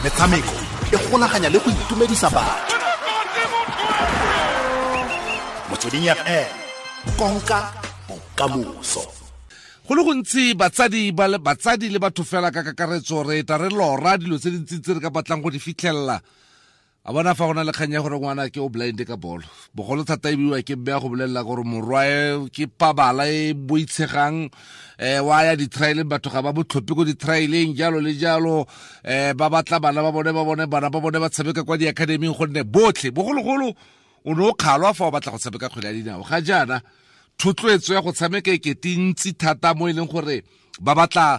Metshameko e golaganya le go itumedisa batho. Motsweding FM, konka bokamoso. Go le gontsi batsadi ba le batsadi le batho fela ka kakaretso re ta re lora dilo tse dintsi tse re ka batlang go di fitlhelela. A bona fa go na le kgang ya gore ngwana ke o blind ka bolo, bogolo thata e biwa ke mme ya go bolelela gore morwae ke pabala e boitshegang, wa ya di-trialeng, batho ga ba botlhophe ko di-trialeng, jalo le jalo. Ba batla bana ba bone, ba bone bana ba bone ba tshameka kwa di-academyng, gonne botlhe bogologolo o ne o kgalwa fa o batla go tshameka kgwele ya dinao. Ga jaana thotloetso ya go tshameka e kete ntsi thata mo e leng gore ba batla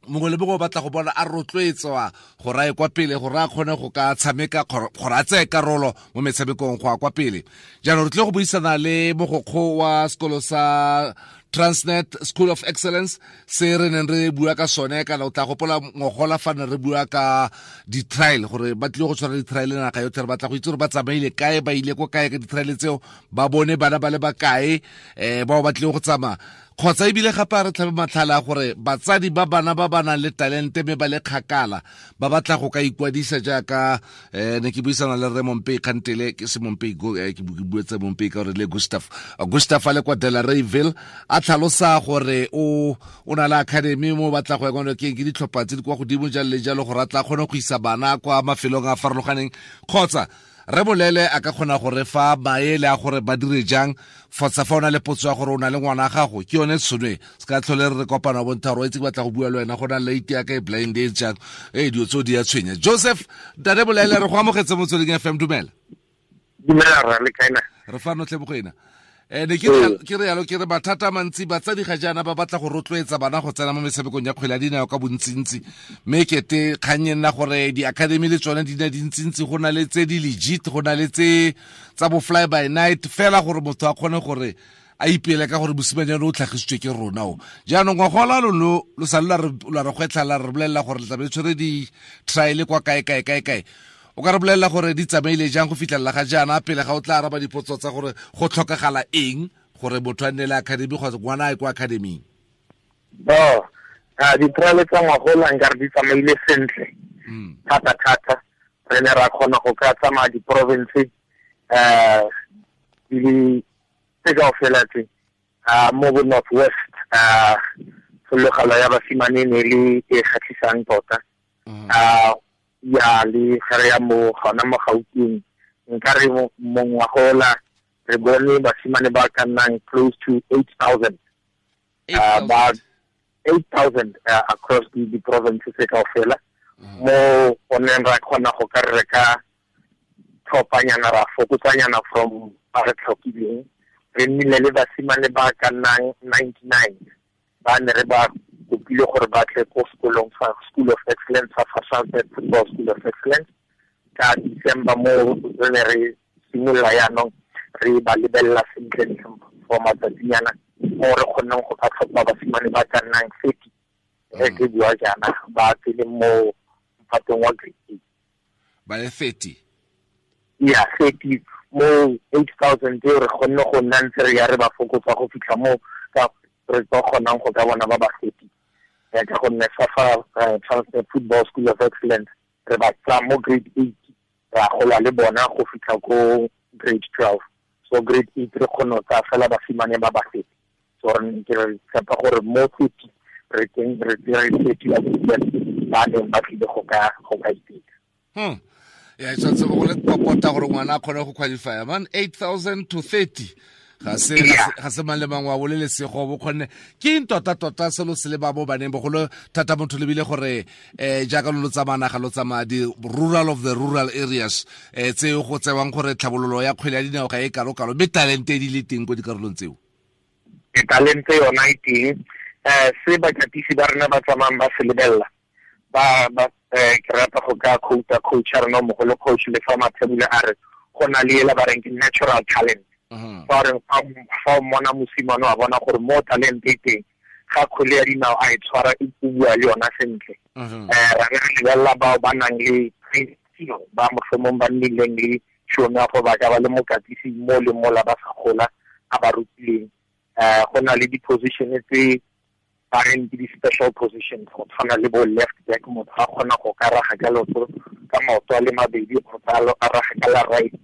mongwe le mongwe o batla go bona a rotloetswa gore a ye kwa pele, gore a kgone go ka tshameka, gore a tseye karolo mo metshamekong go ya kwa pele. Jaanong re tlile go buisana le mogokgo wa sekolo sa Transnet School of Excellence se re neng re bua ka sone, kana o tla gopola ngogola fa ne re bua ka di-trial, gore ba tlile go tshwara di-trial naga yotlhe. Re batla go itse gore ba tsamaile kae, ba ile ko kae ka di-trial tseo, ba bone bana ba le bakae, bao ba tlile go tsamaya, kgotsa ebile gape a re tlhabe matlhala a gore batsadi ba bana ba ba nang le talente mme ba le kgakala ba batla go ka ikwadisa. Jaaka ne ke buisana le rre Mompei kgantele, ke se Mompei, ke buetse Mompei ka gore le Gustav, Gustav a le kwa Delareyville, a tlhalosa gore o na le academy mo batla go ya kwa ke ditlhopha tse di kwa godimo jalo le jalo, gore a tla kgone go isa bana kwa mafelong a farologaneng, kgotsa re bolele a ka kgona go re fa maele a gore ba dire jang. Fotsa fa o na le potso ya gore o na le ngwana gago, ke yone tshone se ka tlhole re kopana bontsha gore o itse ke batla go bua le wena, go na late ya ka e blind e jang, ee dilo tseo di ya tshwenya. Joseph Tate Bolele, re go amogetse Motsweding FM, dumela. Dumela rra, le kae na? Re fa notlhe bogoena. Ne ke re yalo, ke re mathata a mantsi batsadi ga jaana ba batla go rotloetsa bana go tsena mo metshamekong ya kgwele ya dinao ka bontsintsi, mme kete kgang e nna gore di-academy le tsone di ne dintsintsi, go na le tse di legit, go na le tse tsa bo fly by night fela, gore motho a kgone gore a ipele ka gore mosimanyane o tlhagisitswe ke rona o. Jaanong ngwagola lo lo sale la re gwetlha, la re bolelela gore le tlabe le tshwere di-trial kwa kae kae kae kae. O ka re bolelela gore di tsamaile jang go fitlhelela ga jaana, pele ga o tla araba dipotso tsa gore go tlhokagala eng gore motho a nne le academy kgotsa ngwana a ye kwa academyng? Oh, di-trial tsa ngwagola nkare di tsamaile sentle thata thata. Re ne ra kgona go ka tsamaya di-province di le tse kaofela tse mo bo North West. Tshologelo ya basimane ne le e kgatlhisang tota. Ya le gare ya mo gona mo Gauteng, nka re mongwagola re bone basimane ba ka nnang close to 8,000, ba 8,000 across the provinces tse kaofela, mo go neng ra kgona go ka re ka tlhophanyana, ra fokotsanyana from ba re tlhokileng. Re nnile le basimane ba ka nnang 99 ba ne re ba kopile gore ba tle ko sekolong sa School of Excellence, sa Transnet Football School of Excellence, ka December, mo re ne re simolola yaanong re ba lebelela sentle for matsatsinyana, mo re kgonneng go ka tlhopha basimane ba ka nnang 30. Re ke bua jaana ba tsene mo mphatong wa grade 8. Ba le 30? Ya, 30 mo 8,000 eo re kgonne go nna ntse re ya re ba fokotsa go fitlha mo ka re tlo kgonang go ka bona ba ba 30, ya ka gonne fa Transnet Football School of Excellence re ba tsaya mo grade 8, ra gola le bona go fitlha ko grade 12. So grade 8 re kgone go tsaya fela basimane ba ba 30. So re ke re tshepa gore mo 30 re teng re tsere 30 ya ba neng ba tlile go ka iteka. Ya, e tshwanetse go le popota gore ngwana a kgone go qualify man 8,000 to 30, ga se ga se mang le mang wa bole lesego bo kgonne. Ke eng tota tota selo se le ba mo baneng, bogolo thata motho lebile gore jaaka lo tsamaya naga, lo tsamaya di rural of the rural areas, tse go tsewang gore tlhabololo ya kgwele ya dinao ga e kalo-kalo, mme talente di le teng ko dikarolong tseo? E talente yona e teng. Se bakatisi ba rena ba tsamayang ba se lebelela, ba ke rata go ka quote coach ya rena mogolo, coach le fa Mathebula, a re go na le ela ba reng ke natural talent. Fa re fa o mmona mosimane, wa bona gore mo talent e teng, ga kgwele ya dinao a e tshwara, e bua le yona sentle. Ra re lebelela bao ba nang le ba mohlomong ba nnileng le tšhono ya go ba ka ba le mokatisi mo le mola ba sa gola a ba rutileng. Go na le di-position tse ba reng ke di-special positions, go tshwana le bo left back, motho a kgona go ka raga ka leoto ka maoto a le mabedi kgotsa a raga ka la right.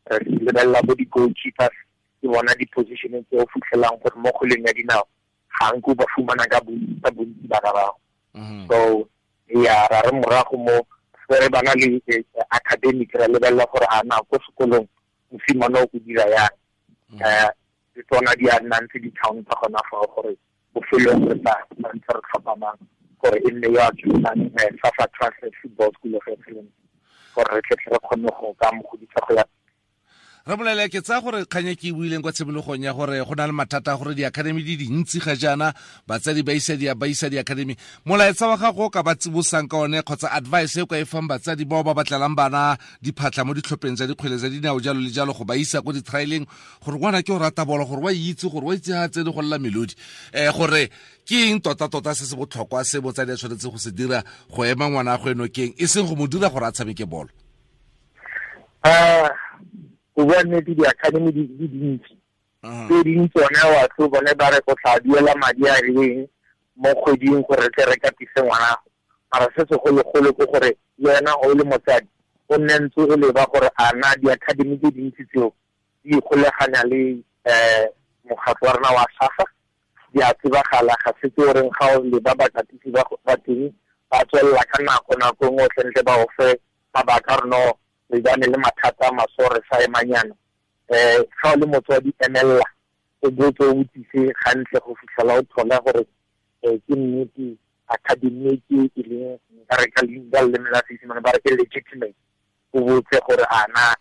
Re lebelela bo di-goalkeepers, ke bona di-position tse o fitlhelang gore mo kgweleng ya dinao ga nko ba fumana ka bontsi bana bao. So ya ra re morago mo re bana le academic, ra lebelela gore a na ko sekolong mosimane o go dira yang. Le tsona di a nna ntse di-town tsa gona fao gore bofelong re tla ntse re tlhopha mang gore e nne yo a tswang SAFA Transnet Football School of Excellence, gore re tle re kgone go ka mo godisa go ya. Re bolele ke tsaya gore kganye ke e buileng kwa tshimologong ya gore go na le mathata a gore di-academy di dintsi ga jaana, batsadi ba isa di-academy. Molaetsa wa gago o ka ba tsibosang ka one kgotsa advice e o ka e fang batsadi bao ba batlelang bana diphatlha mo ditlhopheng tsa dikgwele tsa dinao jalo le jalo, go ba isa ko di-trialeng gore ngwana ke o rata bolo, gore wa itse gore wa itse ga tsene go lela melodi, gore ke eng tota-tota se se botlhokwa se botsadi a tshwanetse go se dira go ema ngwana a go enokeng, e seng go mo dira gore a tshameke bolo? Go bua nnete, di-academy di dintsi. Tse ding tsone batho bone ba re go tla duela madi a rileng mo kgweding gore re tle re katise ngwana. Mara se segologolo ke gore le wena o le motsadi o nne ntse o leba gore a na di-academy tse dintsi tseo di ikgoleganya le mokgatlho wa rona wa SAFA, di a tsebagala, ga se tse o reng ga o leba bakatisi ba teng ba tswelela ka nako nako nngwe o tlentle ba o fe mabaka a rona re bane le mathata a maso re sa emanyana. Ga o le motswadi emelela o botse o botsise gantle go fitlhela o thola gore ke nnete academy ke e leng nka re ka leina leleme la Seesimane ba re ke legitimate. O botse gore a na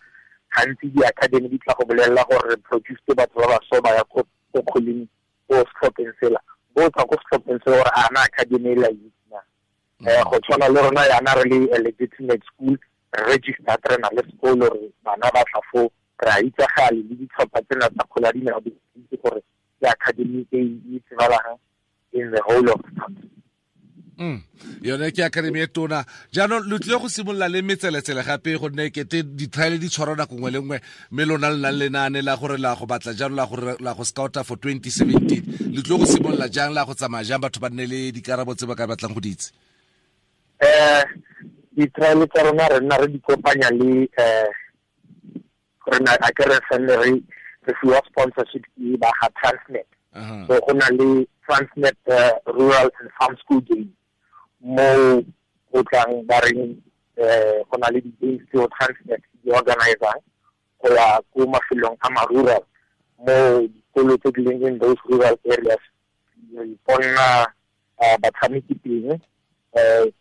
gantsi di-academy di tla go bolelela gore re produced batho ba baso ba ya ko kgweleng ko setlhopheng sela, botsa ko setlhopheng sela gore a na academy e la itse na. Go tshwana le rona yana re le a legitimate school registered, re na le sekolo, re bana ba tla foo, re a itsagale le ditlhopha tsena tsa kgwele ya dinao di itse gore ke academy e e tsebalang in the whole of the country. Yone ke academy e tona. Jaanong lo tlile go simolola le metseletsele gape, gonne kete di-trial di tshwarwa nako nngwe le nngwe, mme lona le nang lenaane la gore la go batla jalo la gore la go scouta for 2017. Le tlile go simolola jang, la go tsamaya jang, batho ba nne le dikarabo tse ba ka batlang go di itse? Di-trial tsa rona re nna re di kopanya le rena a ke re felle re fiwa sponsorship ke ba ga Transnet. So go na le Transnet Rural and Farm School Games mo go tlang ba reng go na le di-games tseo Transnet di organizang go ya ko mafelong a ma-rural, mo dikolo tse di leng in those rural areas re iponna batshameki teng.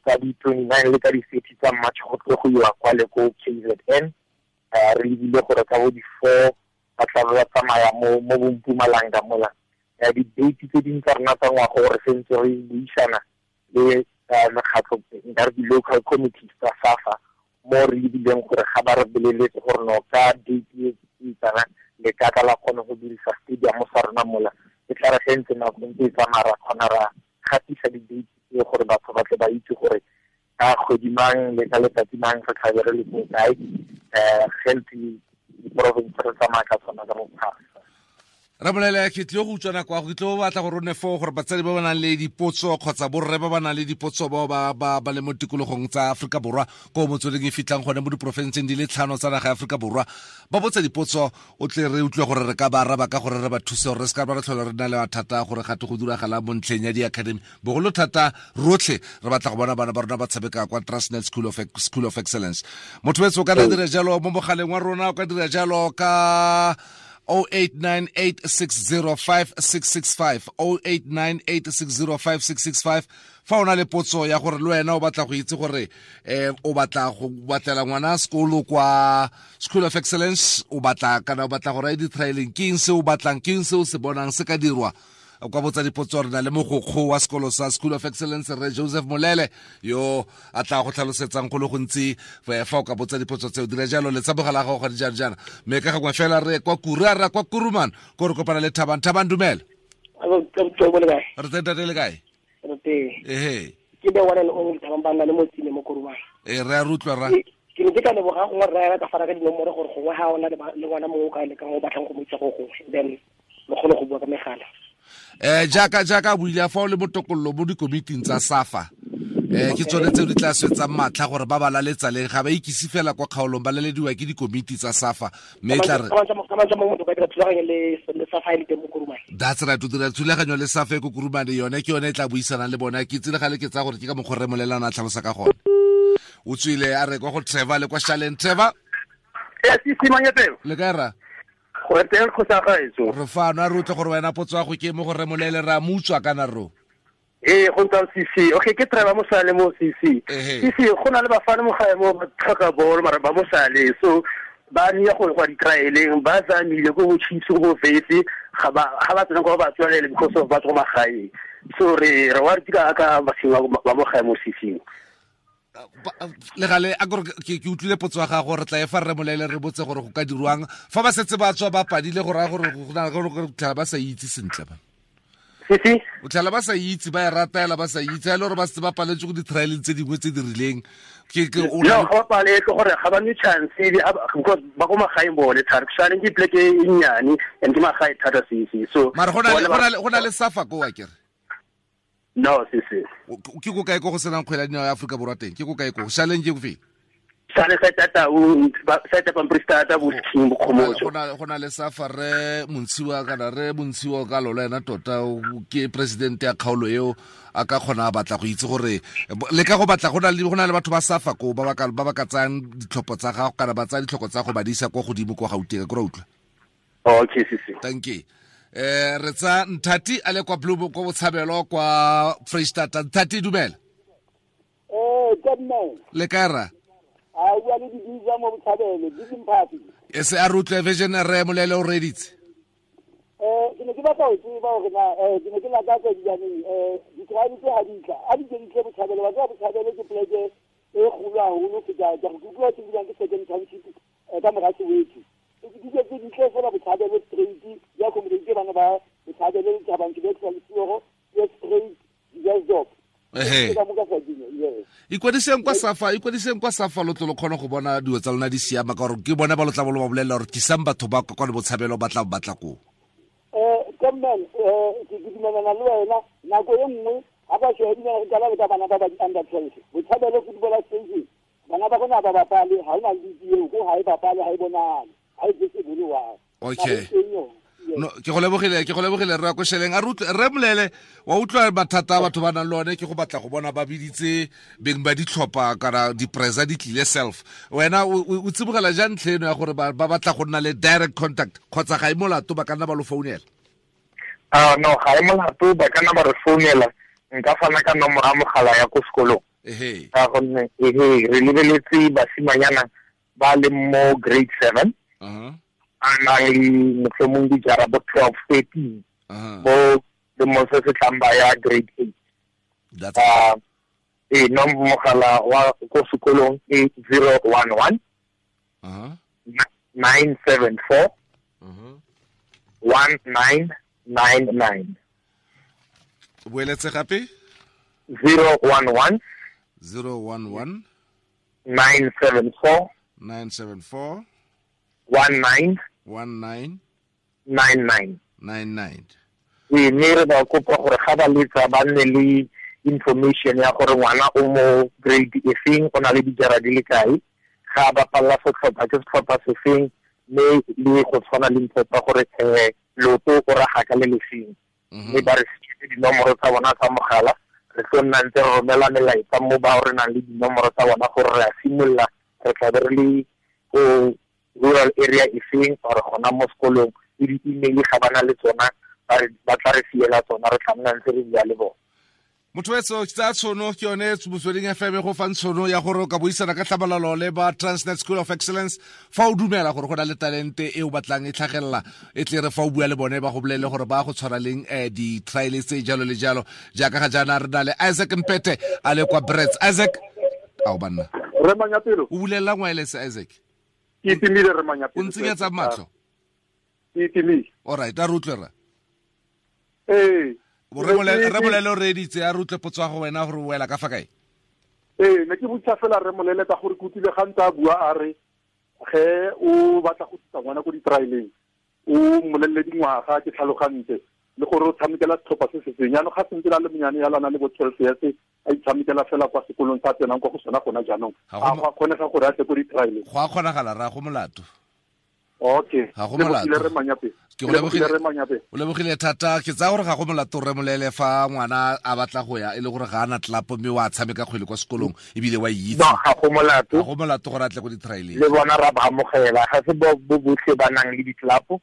Ka di-29 le ka di-30 tsa March go tlo go iwa kwa le ko KZN. Re lebile gore ka bo di-4 ba tla ba tsamaya mo Mpumalanga mola. Di-date tse dingwe tsa rona tsa ngwaga gore sentse re buisana le mekgatlho nka re di-local committees tsa SAFA, mo re lebileng gore ga ba re boleletse gore no ka date e tsana le ka tla la kgone go dirisa stadium sa rona mola, e tla re ge ntse nako ntse e tsamaya ra kgona ra gatisa di-date tse gore batho ba tle ba itse gore ka kgwedi mang le ka letsatsi mang re tlabe re le ko kae. Ge ntse diporofense re tsamaya ka tsona ka bophara. Ramolele, ke tlile go utswa nako ya go, ke tlile go batla gore o nne foo gore batsadi ba ba nang le dipotso kgotsa borre ba ba nang le dipotso bao ba le mo tikologong tsa Aforika Borwa ko motsweding e fitlhang gone mo diporofenseng di le 5 tsa naga ya Aforika Borwa, ba botse dipotso, o tle re utlwe gore re ka ba araba ka gore re ba thuse gore re se ka ba re tlhola re na le mathata gore gate go diragala mo ntlheng ya di-academy. Bogolo thata rotlhe re batla go bona bana ba rona ba tshameka kwa Transnet School of Excellence. Motho wetso o ka dira jalo mo mogaleng wa rona, o ka dira jalo ka 0898605665, 0898605665. Fa o na le potso ya gore le wena o batla go itse gore o batla go batlela ngwana sekolo kwa School of Excellence, o batla kana o batla go raya di-trialing, ke eng se o batlang, ke eng se o se bonang se ka dirwa, kwa botsa dipotso. Re na le mogokgo wa sekolo sa School of Excellence, Rre Joseph Molele, yo a tla go tlhalosetsang go le gontsi fa o ka botsa dipotso tseo. Dira jalo le tsabogela gago ga dijana jana. Mme ka gangwe fela re kwa Kura, re kwa Kuruman, ko re kopana le Thabang. Thabang, dumela. Re teng tate, le kae? Re teng. Ehe. Ke be one and only Thabang ba nna le motsine mo Kuruman. Re a rutlwa ra. Ke ne ke ka leboga gongwe rra ya ka fara ka dinomoro gore gongwe ga ona le ngwana mongwe o ka lekang o batlang go mo itsa go gongwe, then le kgone go bua ka megala. Jaaka buile fa o le motokololo mo dikomiting tsa SAFA ke tsone tseo di tla swetsang matlha gore ba ba laletsa leng, ga ba ikise fela kwa kgaolong, ba lalediwa ke dikomiti tsa SAFA. Mme tla re that's right, o dira thulaganyo le SAFA e ko Kurumane, yone ke yone e tla buisanang le bona. Ke tsile gale ke tsaya gore ke ka mokgwa re molelana a tlhalosa ka gone. O tswile a re kwa go Trevor le kwa Shaleng. Trevor, le kae ra? Go teng go sa gaetso. Re fano, a re utlwe gore wena potso ya go ke mo go re molele ra mutswa kana ro. Ee, go ntse CC. Okay, ke Trevor Mosale mo CC. CC go na le bafana mo gae mo ba tlhoka bolo mara ba Mosale. So ba nia go go di-trialeng, ba tsamile ko bo Chiefs go bo Vetse, ga ba tsena go ba tswalele because of ba tswa magaeng. So re wa re ka ka basima ba mo gae mo CC. Le gale a gore ke utlwile potso ya gago, re tla e fa re molele re botse gore go ka dirwang fa ba setse ba tswa ba padile, go raya gore go na gore tlhala ba sa itse sentle ba. Sisi o tlhala ba sa itse, ba e ratela ba sa itse, a le gore ba setse ba paletse go di-trialeng tse dingwe tse di rileng. No, ga ba paletse gore ga ba nwe chance because ba ko magaeng bone thata. Shaleng ke pleke e nnyane and ke magae thata CC. So mara go na le SAFA ko wa kere? No, CC. Ke ko kae ko go senang kgwele ya dinao ya Aforika Borwa teng? Ke ko kae ko? Shaleng ke ko fe? Sale sa tata o sa tata pampiri bo King bo Khomotso. Go na le SAFA re Montshiwa kana re Montshiwa ka lolo ena tota ke president ya kgaolo eo, a ka kgona a batla go itse gore le ka go batla go na le batho ba SAFA ko ba ba ka tsayang ditlhopho tsa gago kana ba tsaya ditlhoko tsa go ba di isa kwa godimo kwa Gauteng, ke ra utlwa. Okay, CC. Thank you. Re tsa Nthati a le kwa Blue kwa Botshabelo kwa Freistata. Nthati, dumela. Le kae ra? A bua le dibitsa mo Botshabelo, di E se a re utlwe vision re molele o reditse. Ke ne ke batla ho tseba hore na ke ne ke lakatsa dijaneng di-tribe tse ha di tla, a di ke di tle Botshabelo, ba tseba Botshabelo ke pleke e kgolo haholo feta ka go utlwa ke bua ke second township ka mora Soweto. Di ke di tle fela Botshabelo straight, ya accommodate bana ba Botshabelo le Thabang ke le Lesogo, ke straight di job. Ikwadiseng kwa SAFA, ikwadiseng kwa SAFA lo tlo kgona go bona dilo tsa lona di siama, ka gore ke bona ba lo tla bo ba bolelela gore tlisang batho ba kwa le Botshabelo ba tla batla ko. Kommen ke dumelana le wena, nako e nngwe ha ba shebile re qala le ka bana ba ba under 12. Botshabelo football station, bana ba rona ba bapale, ha ona le eo ko ha e bapale, ha e bonale, ha e visible wa. Okay. No, ke go lebogile re ya ko Sheleng. A re molele wa utlwa mathata a batho ba nang le one, ke go batla go bona ba biditse beng ba ditlhopha kana dipresa di tlile self. Wena o tsibogela jang ntlha eno ya gore ba batla go nna le direct contact kgotsa ga e molato ba ka nna ba lo founela? No, ga e molato ba ka nna ba re founela. Nka fana ka nomoro ya mogala ya ko sekolong. Ka gonne re lebeletse basimanyana ba le mo grade 7. A nang le mohlomong dijara bo 12, 13 bo le mo se se tlang ba ya grade 8. Nomoro mogala wa ko sekolong ke 011 974 1999. Boeletse gape? 011 011 974 974 19 19 99. 99. Mme re ba kopa gore ga ba letsa ba nne le information ya gore ngwana o mo grade e feng, o na le dijara di le kae, ga ba bapalla setlhopha ke setlhopha se feng, mme le go tshwana le ntho tsa gore loto o raga ka le lefeng. Mme ba re fiwe dinomoro tsa bona tsa mogala, re tlo nna ntse re romela melaetsa mo ba re nang le dinomoro tsa bona gore re a simolola, re tla be re le ko rural area e feng or gona mo sekolong, le di-email ga ba na le tsona, ba tla re fiela tsona, re tla nna ntse re bua le bona. Motho wetso tsa tshono ke yone Motsweding FM go fang tshono ya gore o ka buisana ka tlhamalalo le ba Transnet School of Excellence fa o dumela gore go na le talente e o batlang e tlhagelela, e tle re fa o bua le bone ba go bolele gore ba go tshwara leng di-trial tse jalo le jalo. Jaaka ga jaana re na le Isaac Mpete a le kwa Brits. Isaac, ao banna. Re Manyapelo. O bulela wireless Isaac? Ke itimile re Manyapelo. O ntsenyetsa matlho? Ke itimile. All right, a re utlwe rra. Ee. Re bolele o reeditse, a re utlwe potso ya go wena gore o wela ka fa kae? Ee, ne ke botsa fela re molele ka gore ke utlwile ga ntse a bua a re ge o batla go tlisa ngwana ko di-trialeng o mmolelele dingwaga, ke tlhalogantse. Le gore o tshamekela setlhopha se se feng. Jaanong ga sentse la le monyane ya lana le bo 12 years, a itshamekela fela kwa sekolong sa tsenang kwa go sona gona jaanong. A go a kgonega gore a tle ko di-trialeng? Go a kgonagala, ra go molato. Okay. Ga go molato. Lebogile re Manyape. Ke go lebogile. Re Manyape. O lebogile thata. Ke tsaya gore ga go molato, re Molele, fa ngwana a batla go ya, e le gore ga ana tlapo mme wa tshameka kgwele kwa sekolong ebile wa itse. No, ga go molato. Ga go molato gore a tle ko di-trialeng. Le bona ra ba amogela, ga se bo botlhe ba nang le ditlapo.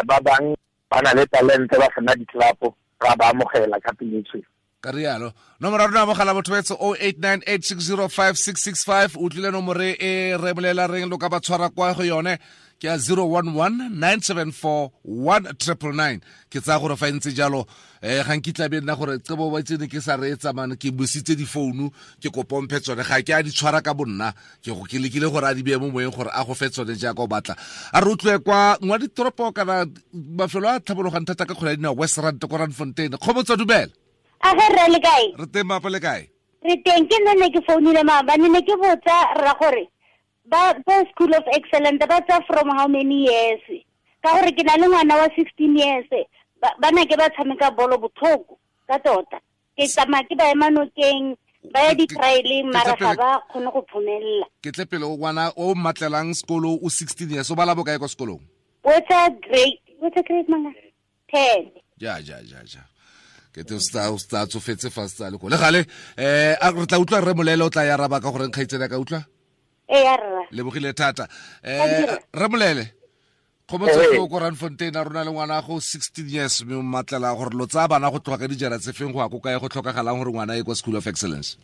Ba bang ba na le talente ba sena ditlapo, ra ba amogela ka pelo tshweu. Ka rialo. Nomoro ya rona mogala botho betsho 0898605665. O tlile nomoro e re bolela reng lo ka ba tshwara kwa go yone ke ya 011 974 1999. Ke tsaya gore fa e ntse jalo, ga nkitla be nna gore tsebo ba tsene ke sa reetsa mane, ke busitse difounu, ke kopomphe tsone, ga ke a di tshwara ka bonna, ke go ke lekile gore a di beye mo moyeng gore a go fe tsone jaaka o batla. A re utlwe kwa ngwa ditoropo kana mafelo a tlhabologang thata ka kgwele ya dinao, West Rand ko Randfontein. Kgomotso, dumela. A ge rre, le kae? Re teng, mapa, le kae? Re teng. Ke nne ne ke founile maabane, ne ke botsa rra gore ba School of Excellence ba tsa from how many years, ka gore ke na le ngwana wa 16 years, ba na ke ba tshameka bolo botlhoko ka tota, ke tsamaya ke ba ema nokeng, ba ya di-trialeng, mara ga ba kgone go phomelela. Ke tle pele, o ngwana o mmatlelang sekolo o 16 years, o bala bokae kwa sekolong? O etsa grade manga 10. Ja ja ja ja, ke te o sta tsofetse fa se le ko le gale. A re tla utlwa rre Molele, o tla ya araba ka gore nkgaitsedi ka utlwa. E ya rra. Lebogile thata. Rre Molele, kgomotso ke o ko Randfontein, a rona le ngwana go 16 years, mme o mmatlela gore lo tsaya bana go tloga ka dijara tse feng go ya ko kae, go tlhokagalang gore ngwana e kwa School of Excellence?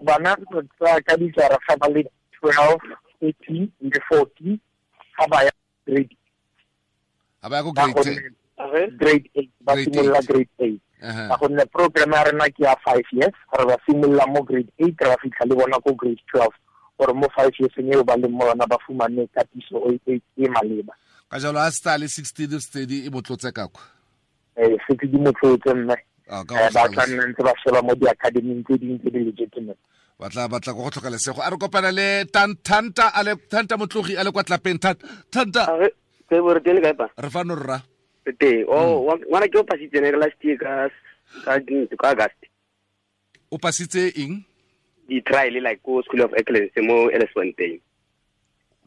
Bana re tsaya ka dijara ga ba le 12, 13 le 14, ga ba ya grade ga ba ya ko grade 10. Grade 8, ba Grade simolola 8. Grade 8, ka gonne program ya rena ke ya 5 years. Re ba simolola mo grade 8, re ba fitlha le bona ko grade 12, gore mo 5 years eo ba leng mo yona ba fumane katiso e maleba. Ka jalo a se le 16 steady e motlotse ka kwa. Setse di motlotse, mme Ah, ka go ba tla tlhalosa. nna ntse ba sheba mo di-academing tse dingwe tse di legitimate. Batla go tlhoka lesego. A re kopana le Thanta, a le Thanta Motlogi, a le kwa Tlapeng. Thanta. Ke bo re teng, le kae pa? Re fano, rra. Re teng. Oh, ngwana ke o pasitse ne last year ka August. O pasitse eng? Di-trial, like ko School of Excellence mo Elsfontein.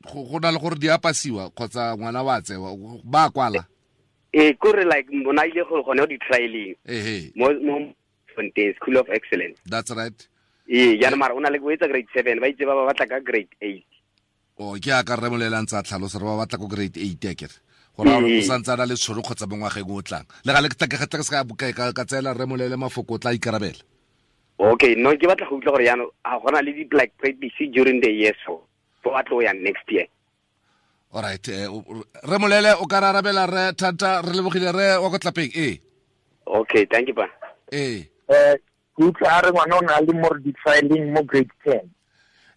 Go na le gore di a pasiwa kgotsa ngwana wa tsewa ba kwala? Ee, kore like bona ile go gone di-trialing Ehe. mo Fontein School of Excellence. That's right. Ee, jaanong mara o na le o etsa grade 7, ba itse ba ba batla ka grade 8. O ke a ka rre Molele a ntse a tlhalosa re ba batla ko grade 8, akere gore a o santse a na le tšhono kgotsa mo ngwageng o tlang le gale ke tla ke se ka tseela rre Molele mafoko, o tla ikarabela. Okay, no, ke batla go utlwa gore jaanong a gona le di-like practice during the year, so fo ba tlo yang next year? Alright, re Molele, o ka re arabela re Thanta. Re lebogile, re wa ko Tlapeng, ee. Okay, thank you pa. Ee. Ke utlwa a re ngwana o na le mo di-trialing mo grade 10.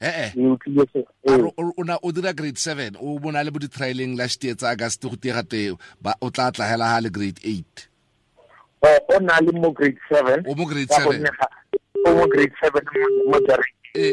Ee. Ke utlwile se. A re o na o dira grade 7, o bona le bo di-trialing last year tsa August, go tiega te ba o tla tlagela ha le grade 8. O na le mo grade 7. O mo grade Ka 7. gonne o mo grade 7 mo jareng. Ee.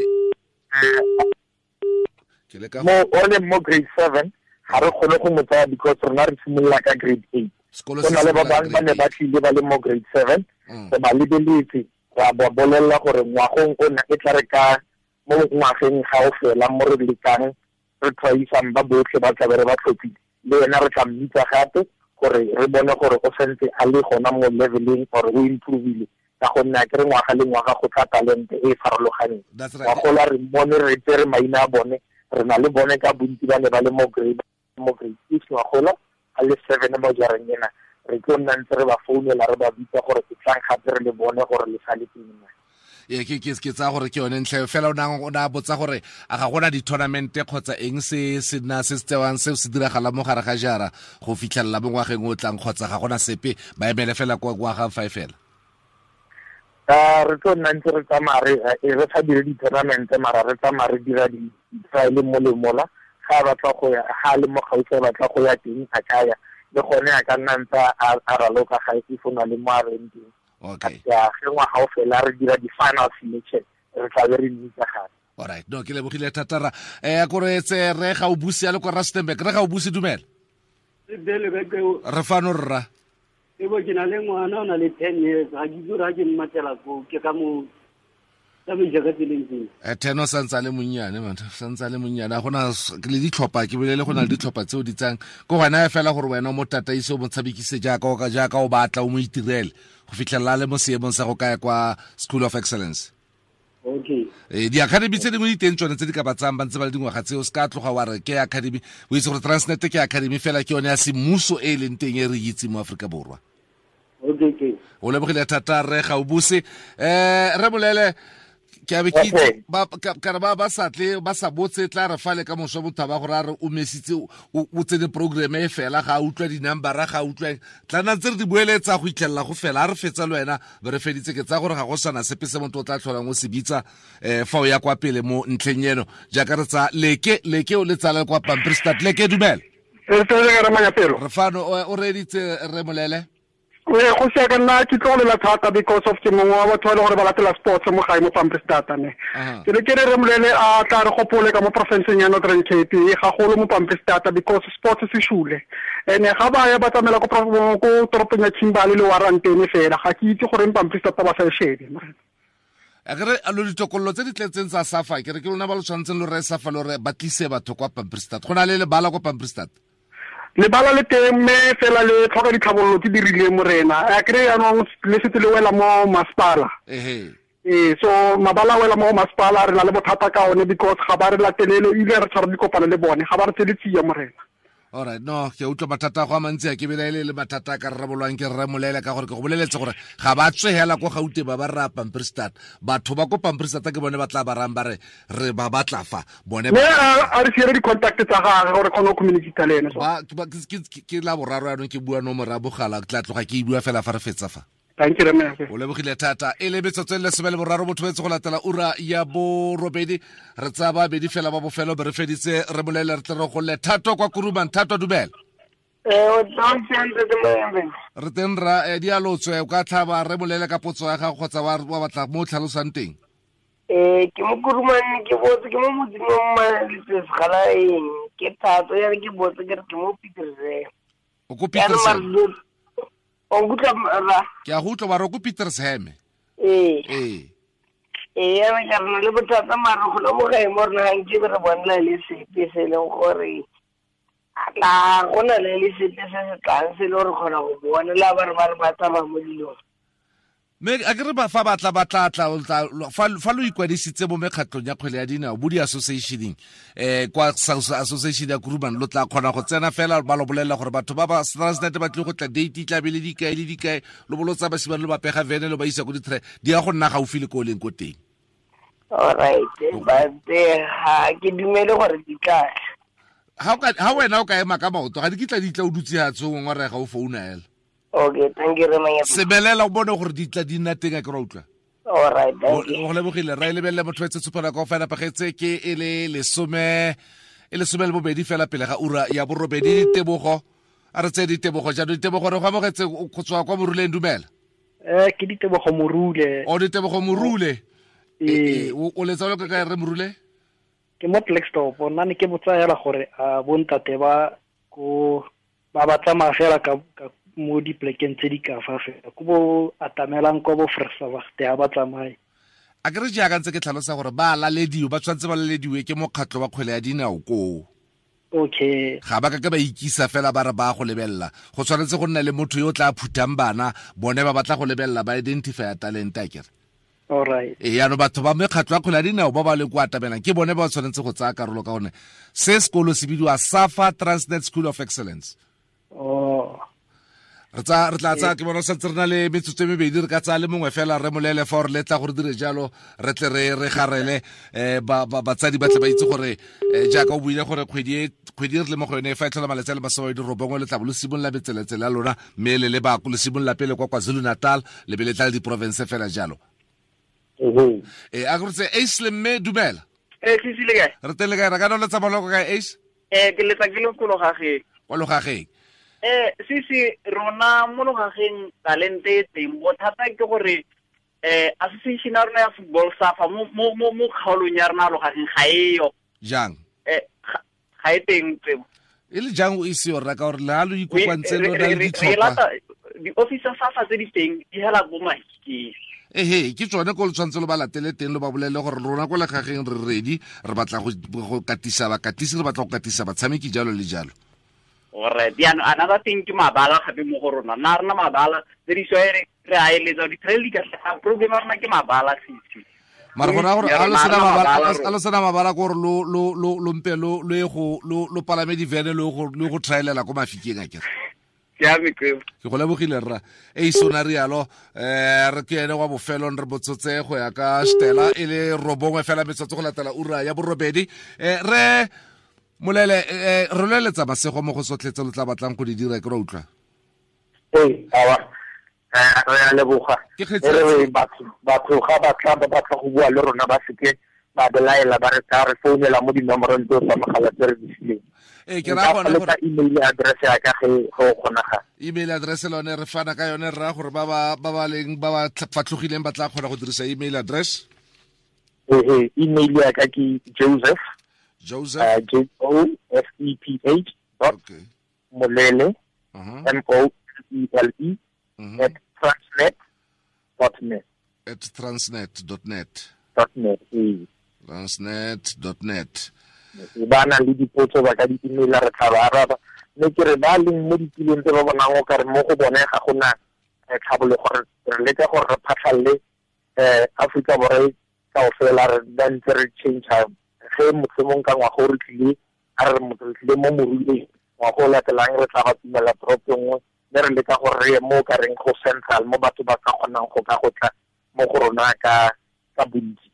Ke le ka Mo o le mo grade 7, ga re kgone go mo tsaya because rona re simolola ka grade 8. Sekolo Go se na le ba simolola bangwe ba ne grade ba tlile ba le mo grade 7. Re ba lebeletse, ra ba bolelela gore ngwagong ona e tla re ka mo ngwageng ga o fela mo re lekang re tshwaisang ba botlhe ba tlabe re ba tlhophile, le ena re tla mmitsa gape gore re bone gore o santse a le gona mo leveleng or o improvile, ka gonne a kere ngwaga le ngwaga go tla talente e e farologaneng. That's right. Ngwagola re mmone, re tsere maina a bone, re na le bone ka bontsi ba ne ba le mo grade 6 ngwagola, a le 7 mo jareng ena. Re tlo nna ntse re ba founela, re ba bitsa gore ke tlang gape re le bone gore le sa le teng na. Ee, ke tsaya gore ke yone ntlha eo fela. O na botsa gore a ga gona di-tournament kgotsa eng se se na se se tsewang se se diragalang mo gare ga jara go fitlhelela mo ngwageng o tlang, kgotsa ga gona sepe, ba emele fela kwa ngwagang fa e fela? Re tlo nna ntse re tsamaya re sa dire di-tournament, mara re tsamaya re dira di-trial mo le mola. Ga a batla go ya, ga a le mo gaufi, a batla go ya teng, a ka ya le gone, a ka nna ntse a raloka ga if o na le mo a reng teng. Ya ge ngwaga o fela re dira di-final selection, re tla be re mmitsa gape. Alright, no, ke lebogile thata ra kore tse re ga o buse a le kwa Rustenburg. Re ga o buse, dumela. Re fano, rra. Ebo ke na le ngwana o na le 10 years, ga ke itse gore ga ke mmatela ko ke ka mo tsamaisa ka tseleng tseng. Ten o santse a le monnyane, man, santse a le monnyane. A gona le ditlhopha, ke bolele go na le ditlhopha tseo di tsang ko gona fela gore wena o mo tataise, o mo tshamekise jaaka o ka, jaaka o batla, o mo itirele go fitlhelela a le mo seemong sa go kaya kwa School of Excellence. Okay. Di-academy tse dingwe di teng tsone tse di ka ba tsayang ba ntse ba le dingwaga tseo, se ka tloga wa re ke academy. O itse gore Transnet ke academy fela, ke yone ya semmuso e e leng teng e re itseng mo Aforika Borwa. Okay, okay. O lebogile thata re ga o buse. Re bolele ke a be ke itse, ba, ka, ka re ba, ba sa tle, ba sa botse, tla re fale ka moso motho a ba gore a re o mesitse, o tsene programme e fela, ga a utlwa di-numbera, ga a utlwa eng. Tla nna ntse re di boeletsa go itlhelela go fela, a re fetsa le wena, be re feditse. Ke tsaya gore ga go sana sepe se motho o tla tlholang o se bitsa, fa o ya kwa pele mo ntlheng eno. Jaaka re tsaya Leke, Leke o le tsala kwa Pampierstad. Leke, dumela. Re tsere ka re manyapelo. Re fano, o reeditse re Molele? Ee, go sia ka nna ke tlogelela thata because of ke mongwe wa batho ba e leng gore ba latela sports mo gae mo Pampierstad ne. Ke ne ke re re Molele a tla re gopole ka mo porofenseng ya Northern Cape, gagolo mo Pampierstad because sports se shule. Ene ga ba ya ba tsamaela ko toropong ya Kimberley le Warrantene fela, ga ke itse goreng Pampierstad ba sa e shebe. A ke re, a lo ditokololo tse di tletseng tsa SAFA, ke re ke lona ba lo tshwanetseng lo reye SAFA lo re ba tlise batho kwa Pampierstad. Go na le lebala kwa Pampierstad? Lebala le teng, mme fela le tlhoka ditlhabololo tse di rileng, morena. A kry jaanong le setse le wela mo masepala. So mabala a wela mo masepala, re na le bothata ka one because ga ba re latelele, ebile re tshwara dikopano le bone, ga ba re tsele tsia, morena. All right, no, ke utlwa mathata a go a mantsi, a ke belaele le mathata a ka rarabolwang ke rre Molele, ka gore ke go boleletse gore ga ba tswe hela ko Gauteng ba ba rra Pampierstad. Batho ba ko Pampierstad ke bone ba tla ba rang ba re re ba batla fa bone ba Mme a re siele di-contact tsa gagwe gore kgone go communicate le ene. Ba, ke ba, ke, ke, ke, ke la boraro yanong ke bua nomoro ya bogala, ke tla tloga ke e bua fela fa re fetsa fa. Thank you, Rre. O lebogile thata. E le metsotso e le lesome le boraro botho betse go latela ura ya borobedi. Re tsaya babedi fela ba bofelo be re feditse, re bolele re tle re golle. Thato kwa Kuruman, Thato dumela. O tla o siame, Ntate Moembe. Re teng ra, di a lotswe, o ka tlhaba re bolele ka potso ya gago kgotsa wa batla mo o tlhalosang teng. Ke mo Kuruman, ke botse, ke mo motseng wa Mmaletswe Segalaeng. Ke Thato, ya re ke botse, ke re ke mo Pietersburg. O ko Ya re Pietersburg? Marlo, o nkutlwa, rra? Ke a go utlwa, ba re o ko Pietersburg. Ee. Ee. Ee, ya re ka re na le bothata mare go le mo gae mo rona ga nke be re bonela le sepe se e leng gore a tla go na le le sepe se se tlang se e le gore kgona go bona le ba re ba re ba tsamaya mo dilong. Mme a ke re ba fa ba tla, ba tla tla, o tla, lo, fa, fa lo ikwadisitse mo mekgatlhong ya kgwele ya dinao, bo di-associationeng, kwa association ya Kuruman, lo tla kgona go tsena fela ba lo bolelela gore batho ba ba Transnet ba tlile go tla date tla be le dikae le dikae, lo bo lo tsaya basimane lo ba pega vene lo ba isa ko di-track, di ya go nna gaufi le ko o leng ko teng. All right, but ga ke dumele gore di tla. Ha wena o ka ema ka maoto, ga di kitla di tla o dutse ha tshong wa rega o founa hela. Okay, thank you, Rre Manyapa. Sebelela o bone gore di tla di nna teng, a ke ra utlwa. All right, thank you. O lebogile, ra e lebelele motho etse tshupana ka fela pagetse ke e le lesome, e lesome le bobedi fela pele ga ura ya borobedi. Ditebogo, a re tseye ditebogo jaanong. Ditebogo, re go amogetse go tswa kwa Moruleng, dumela. Ke Ditebogo Morule. O Ditebogo Morule. Ee. O letsa lo ka kae, Rre Morule? Ke mo Klerksdorp. Nna ne ke botsa hela gore a bontate ba ko ba ba tsamaya fela ka mo diplekeng tse di ka fa fela, ko bo atamelang kwa bo Vrystaat ha ba tsamaye. A ke re jaaka ntse ke tlhalosa gore ba lalediwe, ba tshwanetse ba lalediwe ke mokgatlho wa kgwele ya dinao koo. Okay. Ga ba ka ke ba ikisa fela ba re ba go lebelela. Go tshwanetse go nna le motho yo o tla phuthang bana, bone ba batla go lebelela, ba identify talent, a kere. All right. Ee, yaanong batho ba mekgatlho ya kgwele ya dinao ba ba leng kwa atamelang ke bone ba ba tshwanetse go tsaya karolo, ka gonne se sekolo se bidiwa SAFA Transnet School of Excellence. Oh. Re tla tsaya, ke bona santse re na le metsotso e mebedi, re ka tsaya le mongwe fela re molele fa gore le tla gore dire jalo, re tle re garele, batsadi ba tle ba itse gore, jaaka o buile gore kgwedi e re le mo go yone, fa e tlhola malatsi a le masome a mabedi robongwe, le tla bo le simolola metseletsele ya lona, mme le le ba le simolola pele kwa KwaZulu-Natal, le be le tla le diporofense fela jalo. A ke re tse, Ace le mme, dumela. Sisi le kae? Re teng le kae? Re ka no letsa maloko kae, Ace? Ke letsa ke le ko Logageng. Kwa Logageng. Sisi, rona mo Logageng talente e teng, bothata ke gore, association ya rona ya football SAFA mo kgaolong ya rona ya Logageng ga e yo. Jang? Ga e teng tsebo. E le jang o ise yo rra, ka gore le ha lo ikokwantse lo na le ditlhopha? Di-office tsa SAFA tse di teng di hela bo Mahikeng. Ehe, ke tsone ko le tshwanetse lo ba latele teng, lo ba bolele gore rona ko legageng re ready, re batla go katisa bakatisi, re batla go katisa batshameki, jalo le jalo. Alright, jaanong another thing ke mabala gape mo go rona. Nna rena mabala tse di swaere re a eletsa di-trail di ka tlhaga, problem ya rona ke mabala sisi. Mara go raya gore a lo sena mabala, a lo sena mabala gore lo mpe lo ye go lo palame divene lo go trailela ko Mafikeng a kere. Ke go lebogile rra. E sona rialo, re ke ene wa bofelong re botsotse go ya ka Stella e le 9 fela metsotso go latela ura ya 8. Re Molele, re loeletsa masego mo go sotlhe tse lo tla batlang go di dira, ke ra utlwa. Ee, awa. Re a leboga. Re batho ga ba tla ba batla go bua le rona ba seke ba belaela, ba re tla re founela mo dinomorong tseo tsa mogala tse re di fileng. Ee, ke raya gone gore email address ya ka ge go kgonagala. Email address lone re fana ka yone, rra gore ba ba leng ba ba fatlhogileng ba tla kgona go dirisa email address. Ee, email ya ka ke Joseph. Joseph. J O F E P H dot Molele, M O E L E, at transnet.net. At transnet.net. .net, ee. Transnet.net. Ba na le dipotso ba ka di email re tla ba araba. Mme ke re ba leng mo ditulong tse ba bonang o kare mo go bone ga gona tlhabologo, re leka gore re phatlhalle Afrika Borwa kaofela, re ba ntse re change ge mohlomong ka ngwaga o re tlile, a re motho re tlile mo Moruleng, ngwaga o latelang re tla ba tumela toropo nngwe, mme re leka gore re ye mo ka reng go central, mo batho ba ka kgonang go ka go tla mo go rona ka bontsi.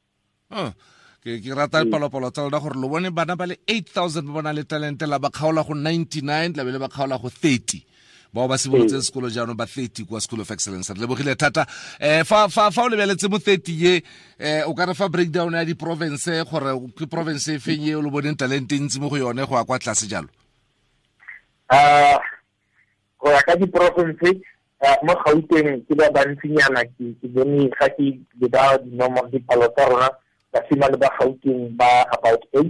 Ke rata dipalopalo tsa lona gore lo bone bana ba le 8,000 ba bona le talente, la ba kgaola go 99, la be le ba kgaola go 30. Bao ba simolotse sekolo jaanong ba 30 kwa School of Excellence. Re lebogile thata. Fa o lebeletse mo 30 ye, o ka re fa breakdown ya di-province gore ke province e feng e o lo boneng talente ntsi mo go yone go ya kwa tlase jalo? Go ya ka di-province, mo Gauteng ke ba bantsinyana, ke bone ga ke leba dinomoro dipalo tsa rona, basimane ba Gauteng ba about 8.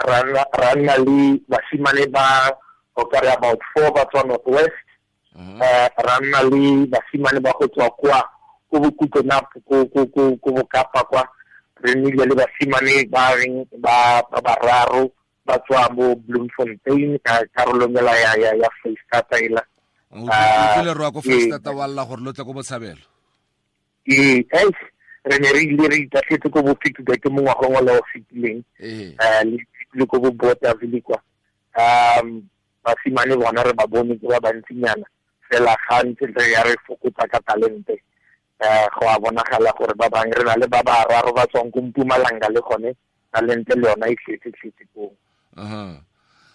Ra nna le basimane ba o ka re about 4 ba tswa North West. Ra nna le basimane ba go tswa kwa ko Bokutlonap, ko Bokapa kwa. Re nnile le basimane ba reng ba bararo ba tswa bo Bloemfontein ka karolong ela ya Freistata ela. O tlile rwa ko Freistata wa lla gore lo tle ko Botshabelo. Ee, re ne re ile re itatlhetse ko bo Pikubeke mo ngwageng o le o fetileng. Le ko bo Bothaville kwa. Basimane bona re ba bone ke ba bantsinyana, fela ga ntse re ya re fokotsa ka talente. Go a bonagala gore ba bangwe re na le ba bararo ba tswang ko Mpumalanga le gone talente le yona e tletse koo.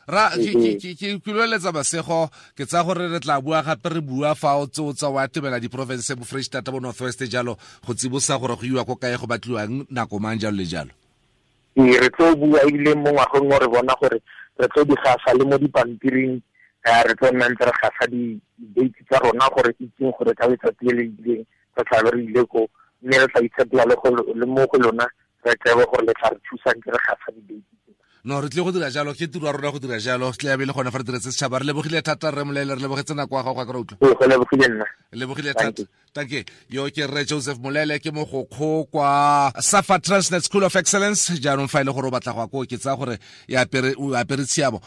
Ra ke loeletsa masego, ke tsaya gore re tla bua gape re bua fa o tse o tsa wa tebela di-province bo Freistata bo North West jalo, go tsibosa gore go iwa ko kae, go batliwang nako mang, jalo le jalo. Ee, re tlo bua ebile mo ngwageng o re bona gore re tlo di gasa le mo dipampiring, re tlo nna ntse re gasa di-date tsa rona gore itseng gore ka letsatsi le le ileng re tla be re ile ko, mme re tla itshepela le mo go lona, re tsebe gore le tla re thusang ke re gasa di-date. No, re tlile go dira jalo, ke tiro ya rona go dira jalo, tle ya be le gone fa re diretse setšhaba. Re lebogile thata rre Molele, re lebogetse nako ya gago, ga ke re utlwa. Ee, go lebogile nna. Lebogile thata. Tanke, yo ke rre Joseph Molele, ke mogokgo kwa SAFA Transnet School of Excellence. Jaanong fa e le gore o batla go ya koo, ke tsaya gore o apere tshiamo.